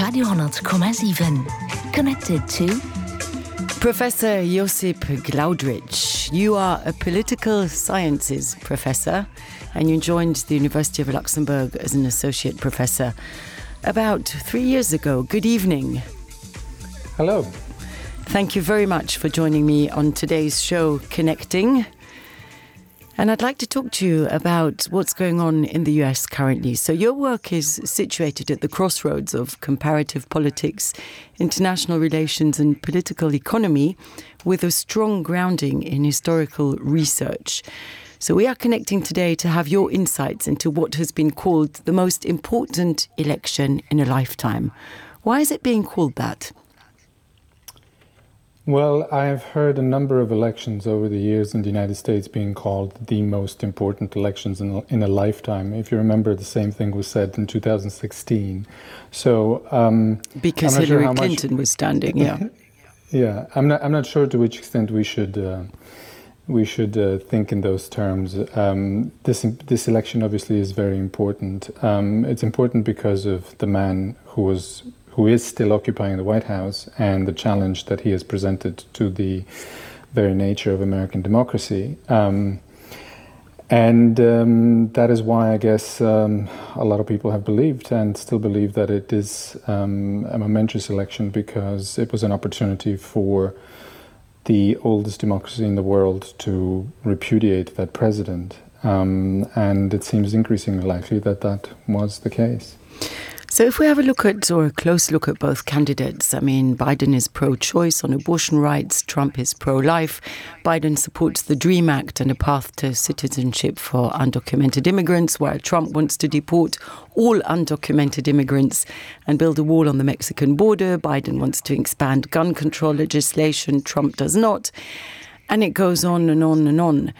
Radio,7. Connected to Professor Josip Glaudrich. You are a political sciences professor and you joined the University of Luxembourg as an associate professor about 3 years ago. Good evening. Hello. Thank you very much for joining me on today's show, Connecting. And I'd like to talk to you about what's going on in the US currently. So your work is situated at the crossroads of comparative politics, international relations and political economy with a strong grounding in historical research. So we are connecting today to have your insights into what has been called the most important election in a lifetime. Why is it being called that? Well, I've heard a number of elections over the years in the United States being called the most important elections in a lifetime. If you remember, the same thing was said in 2016. So, because Hillary Clinton was standing, yeah. Yeah, I'm not sure to which extent we should think in those terms. This election obviously is very important. It's important because of the man who is still occupying the White House and the challenge that he has presented to the very nature of American democracy. That is why I guess a lot of people have believed and still believe that it is a momentous election because it was an opportunity for the oldest democracy in the world to repudiate that president. And it seems increasingly likely that that was the case. So if we have a close look at both candidates, I mean, Biden is pro-choice on abortion rights, Trump is pro-life. Biden supports the DREAM Act and a path to citizenship for undocumented immigrants, while Trump wants to deport all undocumented immigrants and build a wall on the Mexican border. Biden wants to expand gun control legislation, Trump does not. And it goes on and on and on.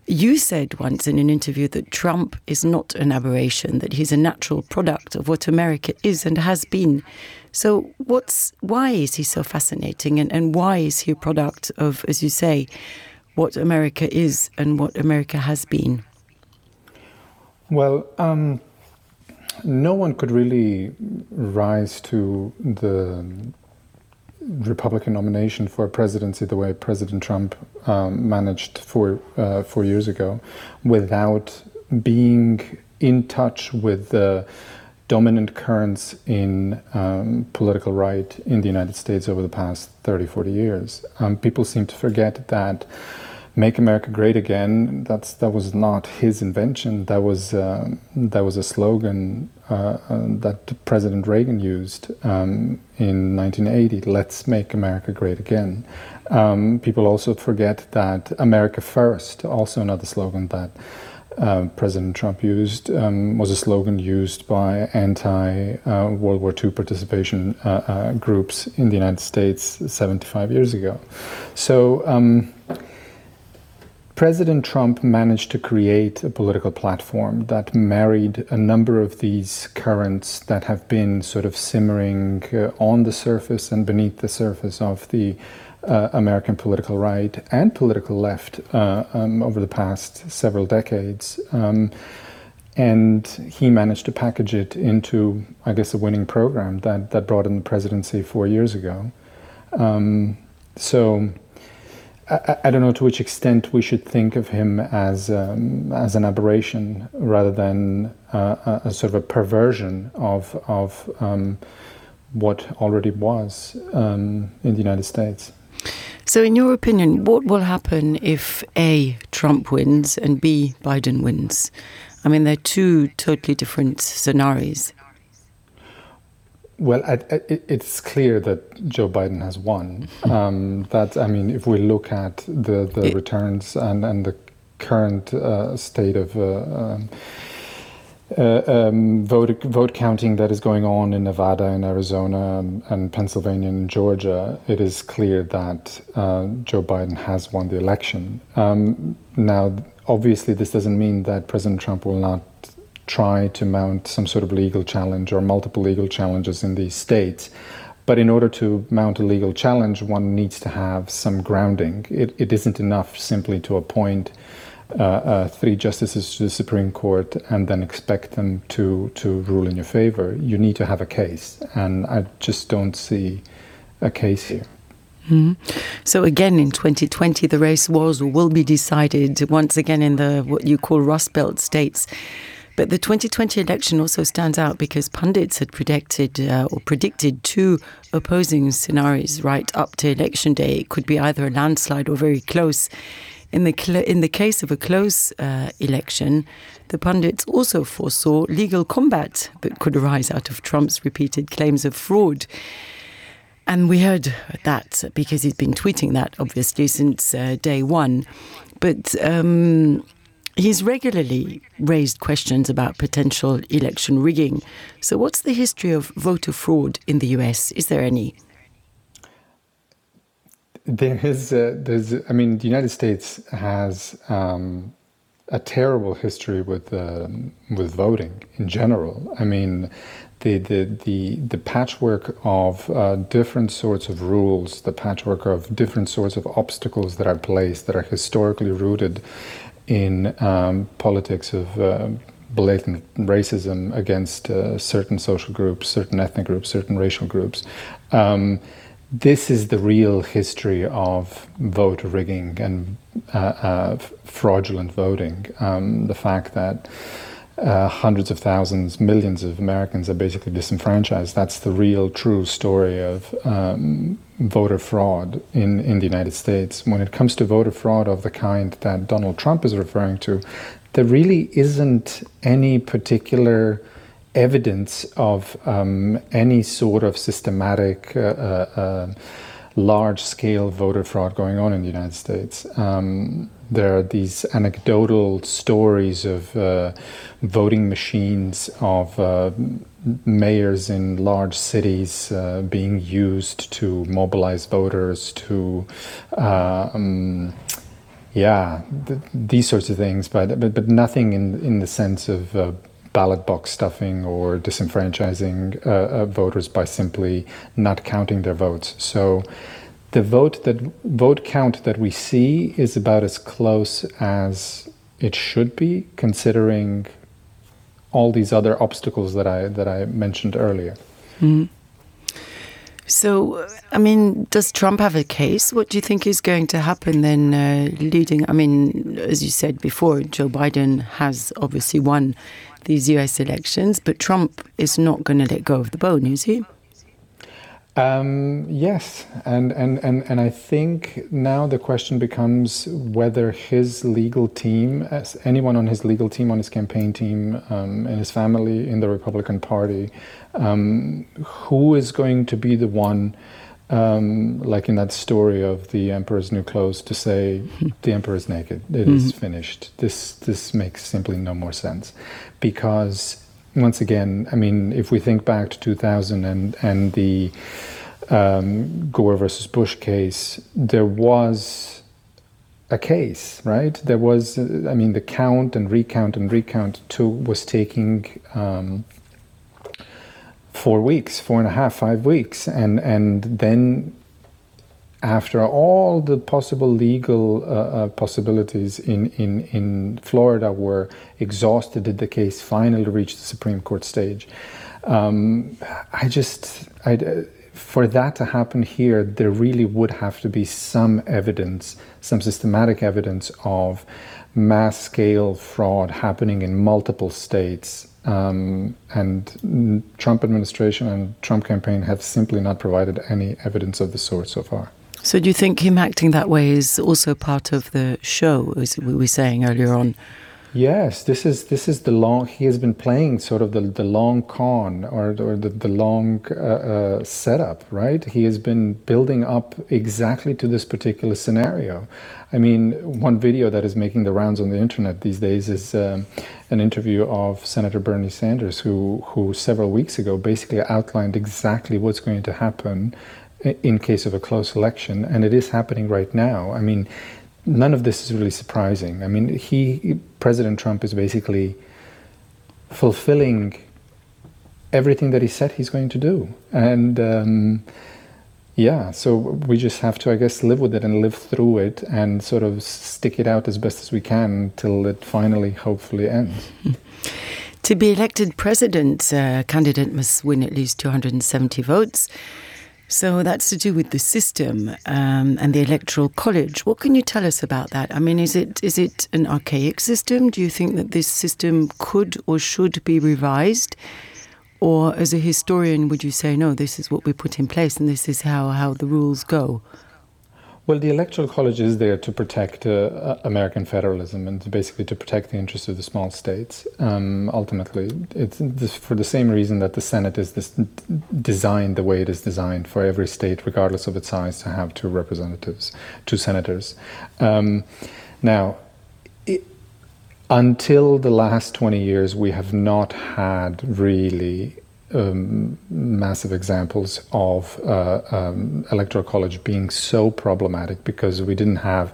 You said once in an interview that Trump is not an aberration, that he's a natural product of what America is and has been. So why is he so fascinating and why is he a product of, as you say, what America is and what America has been? Well, no one could really rise to the Republican nomination for a presidency the way President Trump managed 4 years ago without being in touch with the dominant currents in political right in the United States over the past 30, 40 years. People seem to forget that Make America Great Again, that was not his invention. That was a slogan that President Reagan used in 1980. Let's make America great again. People also forget that America First, also another slogan that President Trump used, was a slogan used by anti-World War II participation groups in the United States 75 years ago. So President Trump managed to create a political platform that married a number of these currents that have been sort of simmering on the surface and beneath the surface of the American political right and political left over the past several decades. And he managed to package it into, I guess, a winning program that brought in the presidency 4 years ago. So I don't know to which extent we should think of him as an aberration rather than a sort of a perversion of what already was in the United States. So in your opinion, what will happen if A, Trump wins and B, Biden wins? I mean, they're two totally different scenarios. Well, it's clear that Joe Biden has won. If we look at the returns and the current state of vote counting that is going on in Nevada and Arizona and Pennsylvania and Georgia, it is clear that Joe Biden has won the election. Now, obviously, this doesn't mean that President Trump will not try to mount some sort of legal challenge or multiple legal challenges in these states. But in order to mount a legal challenge, one needs to have some grounding. It isn't enough simply to appoint 3 justices to the Supreme Court and then expect them to rule in your favor. You need to have a case, and I just don't see a case here. So again, in 2020, the race was or will be decided once again in the what you call Rust Belt states. But the 2020 election also stands out because pundits had predicted 2 opposing scenarios right up to election day. It could be either a landslide or very close. In the case of a close election, the pundits also foresaw legal combat that could arise out of Trump's repeated claims of fraud. And we heard that because he's been tweeting that, obviously, since day one. But he's regularly raised questions about potential election rigging. So what's the history of voter fraud in the US? Is there any? The United States has a terrible history with voting in general. I mean, the patchwork of different sorts of rules, the patchwork of different sorts of obstacles that are placed that are historically rooted in politics of blatant racism against certain social groups, certain ethnic groups, certain racial groups. This is the real history of vote rigging and fraudulent voting. The fact that hundreds of thousands, millions of Americans are basically disenfranchised. That's the real, true story of voter fraud in the United States. When it comes to voter fraud of the kind that Donald Trump is referring to, there really isn't any particular evidence of any sort of systematic, large-scale voter fraud going on in the United States. There are these anecdotal stories of voting machines of mayors in large cities being used to mobilize voters to, these sorts of things, but nothing in the sense of ballot box stuffing or disenfranchising voters by simply not counting their votes. So the vote count that we see is about as close as it should be, considering all these other obstacles that I mentioned earlier. Mm. So, I mean, does Trump have a case? What do you think is going to happen then leading? I mean, as you said before, Joe Biden has obviously won these US elections, but Trump is not going to let go of the bone, is he? Yes, and I think now the question becomes whether his legal team, anyone on his legal team, on his campaign team, and his family in the Republican Party, who is going to be the one, like in that story of the Emperor's New Clothes, to say the Emperor is naked, it is finished. This makes simply no more sense, because once again, I mean, if we think back to 2000 and the Gore versus Bush case, there was a case, right? There was, I mean, the count and recount was taking 4 weeks, 4.5, 5 weeks, and then after all the possible legal possibilities in Florida were exhausted, did the case finally reach the Supreme Court stage? For that to happen here, there really would have to be some evidence, some systematic evidence of mass-scale fraud happening in multiple states. And Trump administration and Trump campaign have simply not provided any evidence of the sort so far. So do you think him acting that way is also part of the show, as we were saying earlier on? Yes, this is the long. He has been playing sort of the long con or the long setup, right? He has been building up exactly to this particular scenario. I mean, one video that is making the rounds on the internet these days is an interview of Senator Bernie Sanders, who several weeks ago basically outlined exactly what's going to happen in case of a close election, and it is happening right now. I mean, none of this is really surprising. I mean, President Trump is basically fulfilling everything that he said he's going to do. And Yeah, so we just have to, I guess, live with it and live through it and sort of stick it out as best as we can till it finally, hopefully, ends. To be elected president, a candidate must win at least 270 votes. So that's to do with the system and the Electoral College. What can you tell us about that? I mean, is it an archaic system? Do you think that this system could or should be revised? Or as a historian, would you say, no, this is what we put in place and this is how the rules go? Well, the Electoral College is there to protect American federalism and basically to protect the interests of the small states. Ultimately, it's for the same reason that the Senate is designed the way it is designed, for every state, regardless of its size, to have two senators. Now, until the last 20 years, we have not had really massive examples of Electoral College being so problematic, because we didn't have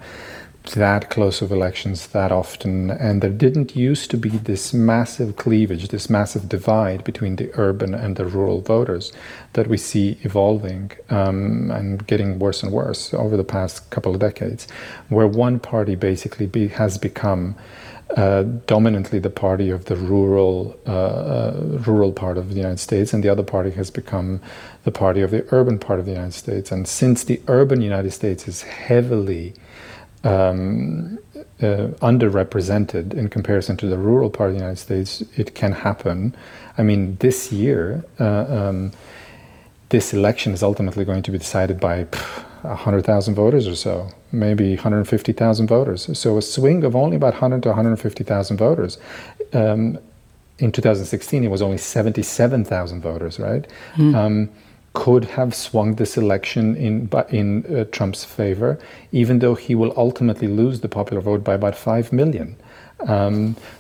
that close of elections that often, and there didn't used to be this massive cleavage, this massive divide between the urban and the rural voters that we see evolving and getting worse and worse over the past couple of decades, where one party basically has become dominantly the party of the rural part of the United States, and the other party has become the party of the urban part of the United States. And since the urban United States is heavily underrepresented in comparison to the rural part of the United States, it can happen. I mean, this year, this election is ultimately going to be decided by 100,000 voters or so, maybe 150,000 voters. So a swing of only about 100 to 150,000 voters. In 2016, it was only 77,000 voters, right? Could have swung this election in Trump's favor, even though he will ultimately lose the popular vote by about 5 million.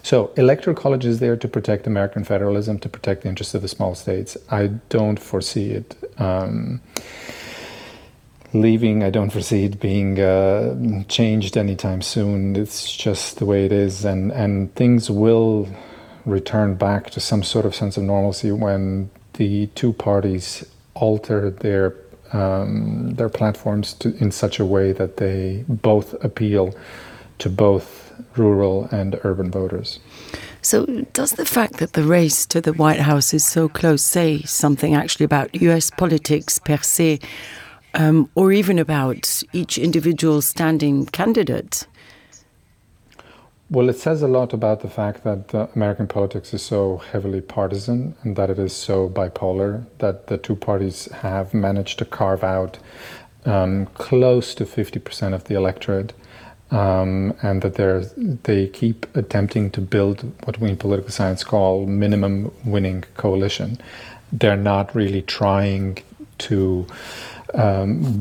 So Electoral College is there to protect American federalism, to protect the interests of the small states. I don't foresee it leaving. I don't foresee it being changed anytime soon. It's just the way it is, and things will return back to some sort of sense of normalcy when the two parties alter their platforms in such a way that they both appeal to both rural and urban voters. So does the fact that the race to the White House is so close say something actually about US politics per se, or even about each individual standing candidate? Well, it says a lot about the fact that American politics is so heavily partisan and that it is so bipolar, that the two parties have managed to carve out close to 50% of the electorate, and that they keep attempting to build what we in political science call minimum winning coalition. They're not really trying to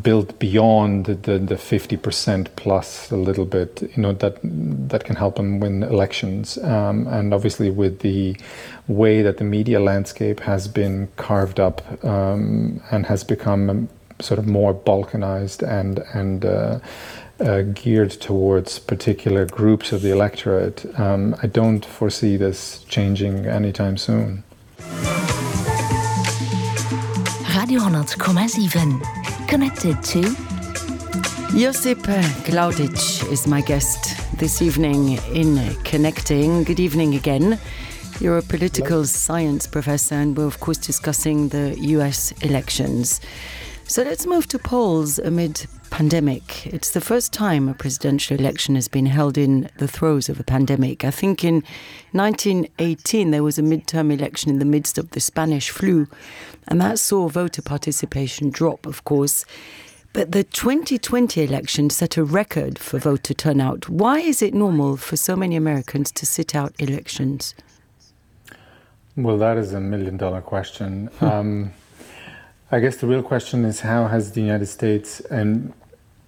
build beyond the 50% plus a little bit, that can help them win elections. And obviously, with the way that the media landscape has been carved up and has become sort of more balkanized and geared towards particular groups of the electorate, I don't foresee this changing anytime soon. Radio 100,7. Connected to Josip Glaudic is my guest this evening in Connecting. Good evening again. You're a political science professor, and we're of course discussing the US elections. So let's move to polls amid pandemic. It's the first time a presidential election has been held in the throes of a pandemic. I think in 1918 there was a midterm election in the midst of the Spanish flu, and that saw voter participation drop, of course. But the 2020 election set a record for voter turnout. Why is it normal for so many Americans to sit out elections? Well, that is $1 million question. I guess the real question is, how has the United States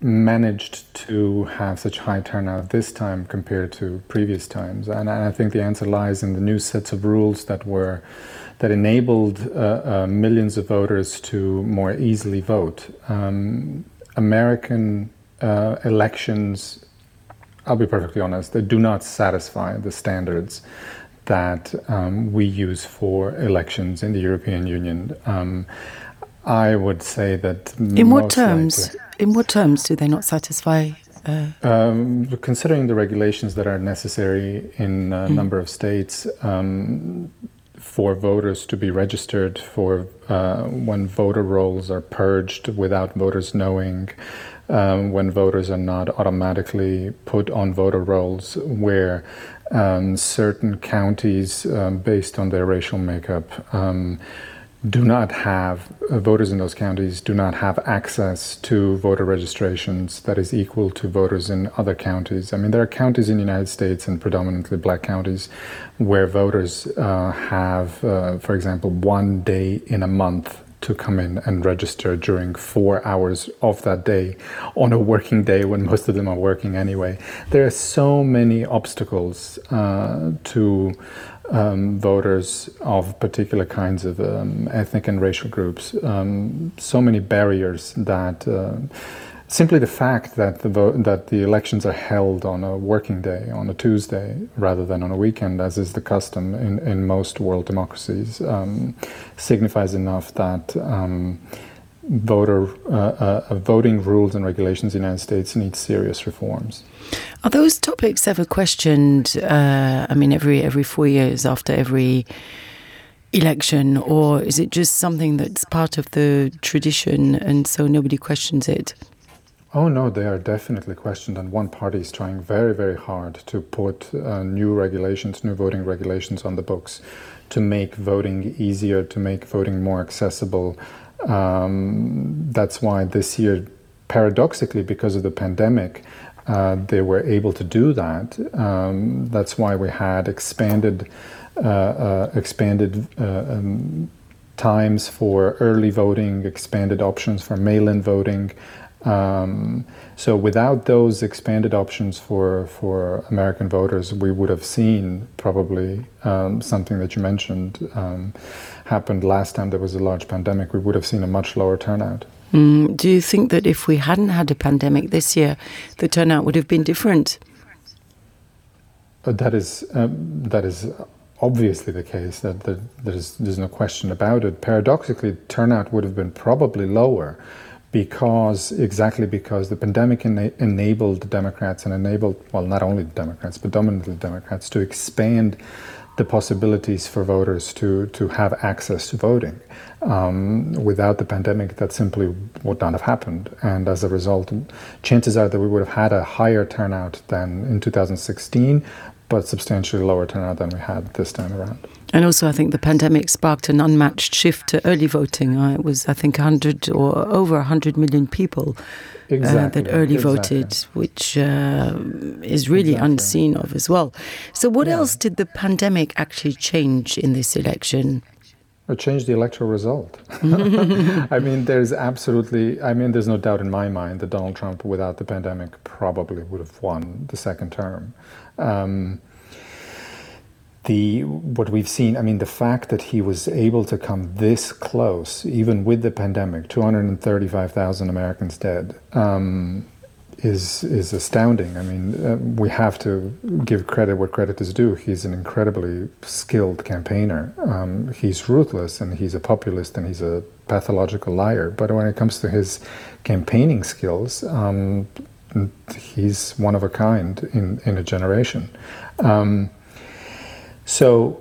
managed to have such high turnout this time compared to previous times? And I think the answer lies in the new sets of rules that enabled millions of voters to more easily vote. American elections, I'll be perfectly honest, they do not satisfy the standards that we use for elections in the European Union. I would say that in what terms? In what terms do they not satisfy? Considering the regulations that are necessary in a number of states for voters to be registered, for when voter rolls are purged without voters knowing, when voters are not automatically put on voter rolls, where certain counties, based on their racial makeup, do not have, voters in those counties do not have access to voter registrations that is equal to voters in other counties. I mean, there are counties in the United States, and predominantly black counties, where voters have, for example, 1 day in a month to come in and register during 4 hours of that day on a working day when most of them are working anyway. There are so many obstacles to voters of particular kinds of ethnic and racial groups, so many barriers that simply the fact that the elections are held on a working day, on a Tuesday, rather than on a weekend, as is the custom in most world democracies, signifies enough that voting rules and regulations in the United States need serious reforms. Are those topics ever questioned, every 4 years after every election, or is it just something that's part of the tradition and so nobody questions it? Oh no, they are definitely questioned, and one party is trying very, very hard to put new voting regulations on the books to make voting easier, to make voting more accessible. That's why this year, paradoxically, because of the pandemic, they were able to do that. That's why we had expanded times for early voting, expanded options for mail-in voting. So without those expanded options for American voters, we would have seen probably something that you mentioned happened last time there was a large pandemic. We would have seen a much lower turnout. Do you think that if we hadn't had a pandemic this year, the turnout would have been different? That is obviously the case. There's no question about it. Paradoxically, turnout would have been probably lower because the pandemic enabled Democrats and not only Democrats, but dominantly Democrats, to expand the possibilities for voters to have access to voting. Without the pandemic, that simply would not have happened. And as a result, chances are that we would have had a higher turnout than in 2016, but substantially lower turnout than we had this time around. And also, I think the pandemic sparked an unmatched shift to early voting. It was, I think, 100 or over 100 million people that early voted, which is really unseen of as well. So what else did the pandemic actually change in this election? It changed the electoral result. There's no doubt in my mind that Donald Trump, without the pandemic, probably would have won the second term. What we've seen, the fact that he was able to come this close, even with the pandemic, 235,000 Americans dead, is astounding. We have to give credit where credit is due. He's an incredibly skilled campaigner. He's ruthless, and he's a populist, and he's a pathological liar. But when it comes to his campaigning skills, he's one of a kind in a generation. So,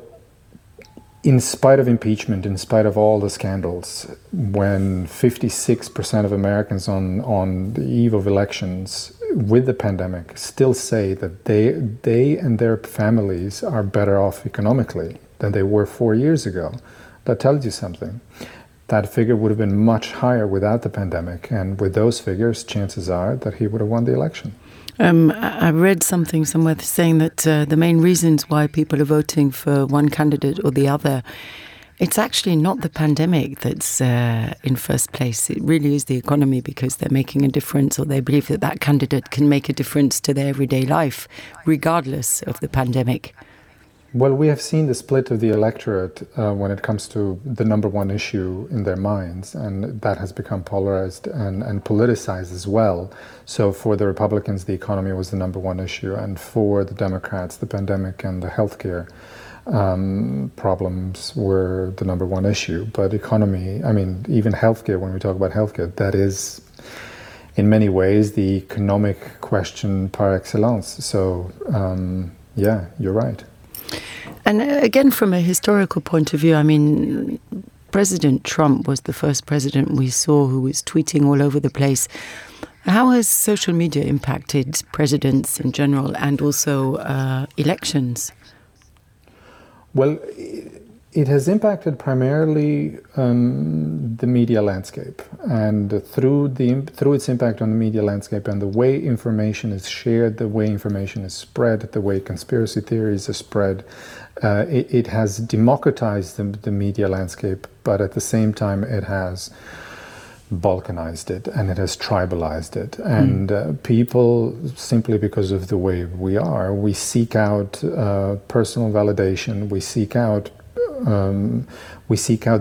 in spite of impeachment, in spite of all the scandals, when 56% of Americans on the eve of elections with the pandemic still say that they and their families are better off economically than they were 4 years ago, that tells you something. That figure would have been much higher without the pandemic, and with those figures, chances are that he would have won the election. I read something somewhere saying that the main reasons why people are voting for one candidate or the other, it's actually not the pandemic that's in first place. It really is the economy, because they're making a difference, or they believe that candidate can make a difference to their everyday life, regardless of the pandemic. Well, we have seen the split of the electorate when it comes to the number one issue in their minds, and that has become polarized and politicized as well. So for the Republicans, the economy was the number one issue, and for the Democrats, the pandemic and the healthcare problems were the number one issue. But economy, I mean, even healthcare, when we talk about healthcare, that is in many ways the economic question par excellence. So, yeah, you're right. And again, from a historical point of view, I mean, President Trump was the first president we saw who was tweeting all over the place. How has social media impacted presidents in general and also elections? Well, it has impacted primarily the media landscape, and through its impact on the media landscape and the way information is shared, the way information is spread, the way conspiracy theories are spread, it has democratized the media landscape, but at the same time it has balkanized it and it has tribalized it. And people, simply because of the way we seek out personal validation, we seek out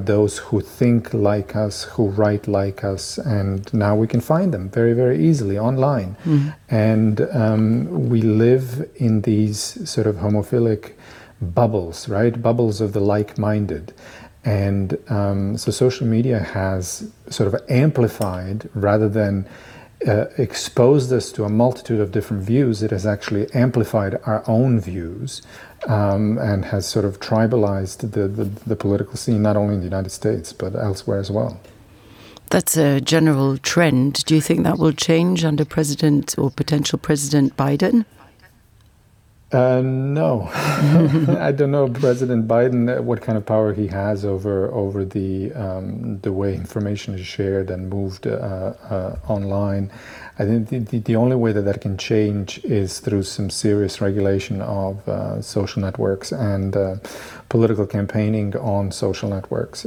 those who think like us, who write like us, and now we can find them very, very easily online. And we live in these sort of homophilic bubbles, right? Bubbles of the like-minded. And so social media has sort of amplified, rather than exposed us to a multitude of different views, it has actually amplified our own views and has sort of tribalized the political scene, not only in the United States, but elsewhere as well. That's a general trend. Do you think that will change under President or potential President Biden? No. I don't know President Biden, what kind of power he has over the way information is shared and moved online. I think the only way that can change is through some serious regulation of social networks and political campaigning on social networks.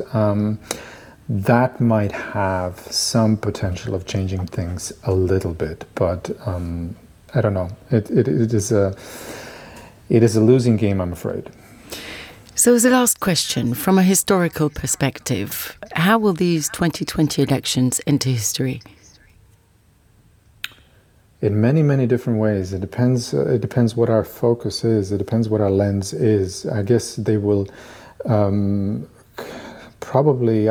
That might have some potential of changing things a little bit, but I don't know. It is a losing game, I'm afraid. So as a last question, from a historical perspective, how will these 2020 elections enter history? In many, many different ways. It depends what our focus is. It depends what our lens is. I guess they will probably,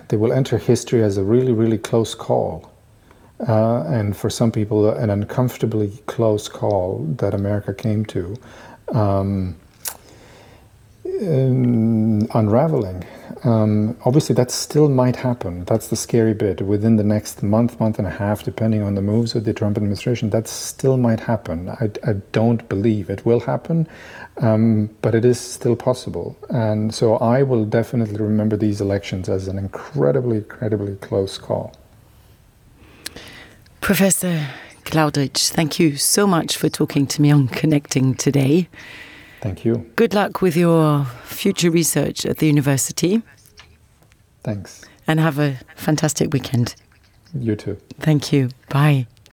they will enter history as a really, really close call. And for some people, an uncomfortably close call that America came to, unraveling. Obviously, that still might happen. That's the scary bit. Within the next month and a half, depending on the moves of the Trump administration, that still might happen. I don't believe it will happen, but it is still possible. And so I will definitely remember these elections as an incredibly, incredibly close call. Professor Claudrich, thank you so much for talking to me on Connecting today. Thank you. Good luck with your future research at the university. Thanks. And have a fantastic weekend. You too. Thank you. Bye.